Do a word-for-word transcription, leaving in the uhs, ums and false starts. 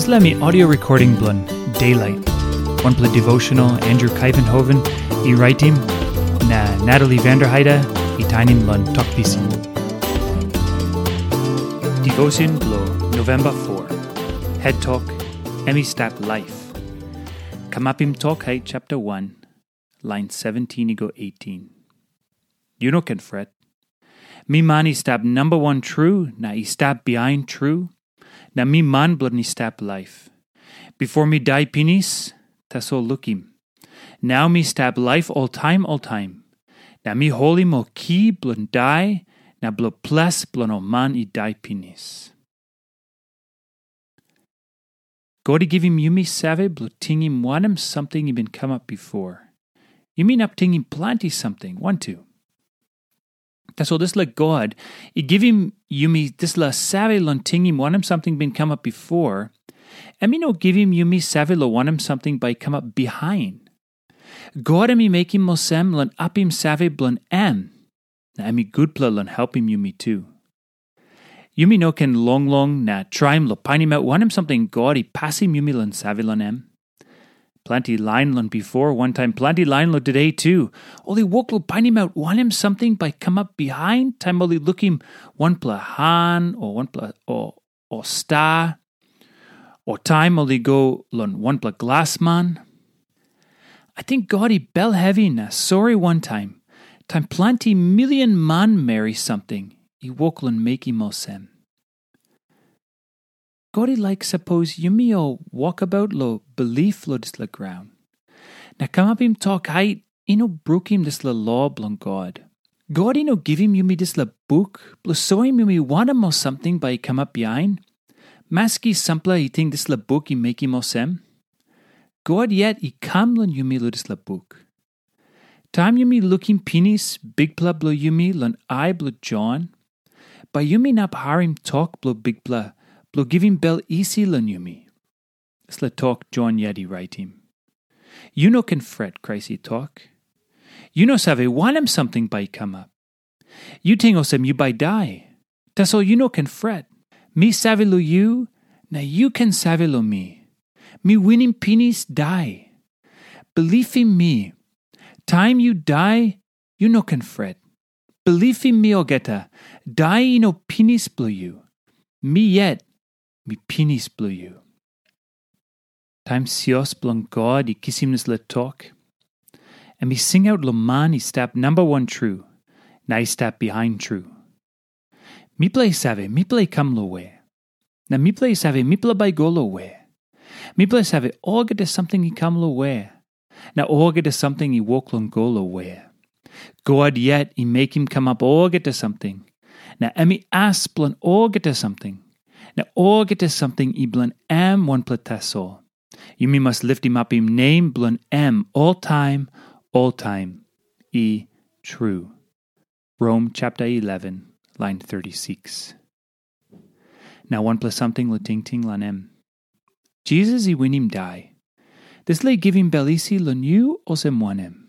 Dispela mi audio recording bilong Daylight, wanpela devotional Andrew Kaivenhoven i raitim, na Natalie Vanderheide i tainim long Tok Pisin. Devotion bilong November four. Head Talk, Em i Stap Laip. Kamapim Tok Hait chapter one, line seventeen i go eighteen. Yu no ken fret. Mi man i stap namba wan tru na i stap bihain tru, na mi man bilong i stap laip. Bipo mi dai pinis, tasol lukim. Nau mi stap laip oltaim oltaim, na mi holim ol ki bilong dai na bilong ples bilong ol man i dai pinis. God i givim yumi save bilong tingim wanem samting i bin kamap bipo. Yumi inap tingim planti samting, wantu. Tasol dispela God i givim yumi dispela save long tingim wanem samting bin kamap bipo, em i no givim yumi save long wanem samting bai i kamap bihain. God em i mekim olsem long apim save bilong em, na em i gutpela long helpim yumi tu. Yumi no ken longlong na traim long painimaut wanem samting God i pasim yumi long save long em. Planti lain long bipo, wantaim planti lain long tude tu, ol i wok long painimaut wanem samting bai i kamap bihain taim ol i lukim wanpela han o wanpela o, o sta, o taim ol i go long wanpela glasman. Ating God i bel hevi na sori wantaim, taim planti milion manmeri samting i wok long mekim olsem. God i laik sapos yumi ol wokabaut long bilip long dispela graun, na kamapim tok hait i no brukim dispela lo bilong God. God i no givim yumi dispela buk bilong soim yumi wanem ol samting bai i kamap bihain. Maski sampela i ting dispela buk i mekim olsem, God yet i kam long yumi long dispela buk. Taim yumi lukim pinis Bikpela bilong yumi long ai bilong Jon, bai yumi inap harim tok bilong Bikpela bilong givim bel isi long yumi. Dispela tok Jon yet i raitim. Yu no ken fret, Krais i tok. Yu no save wanem samting bai i kamap. Yu ting olsem yu bai dai. Tasol yu no ken fret. Mi save long yu, na yu ken save long mi. Mi winim pinis dai. Bilipim mi. Taim yu dai, yu no ken fret. Bilipim mi olgeta, dai i no pinis bilong yu. Mi yet, mi pinis bilong yu. Taim sios bilong God i kisim dispela tok, em i singaut long man i stap namba wan tru, na i stap bihain tru. Mipela i save, mipela i kam long we? Na mipela i save, mipela bai i go long we? Mipela i save, olgeta samting i kam long we? Na olgeta samting i wok long go long we? God yet i mekim kamap olgeta samting, na em i as bilong olgeta samting, na olgeta samting i bilong em wanpela tasol. Yumi mas litimapim nem bilong em oltaim, oltaim. I tru. Rom chapter eleven, line thirty-six. Na wanpela samting long tingting long em. Jisas i winim dai. Dispela i givim bel isi long yu olsem wanem?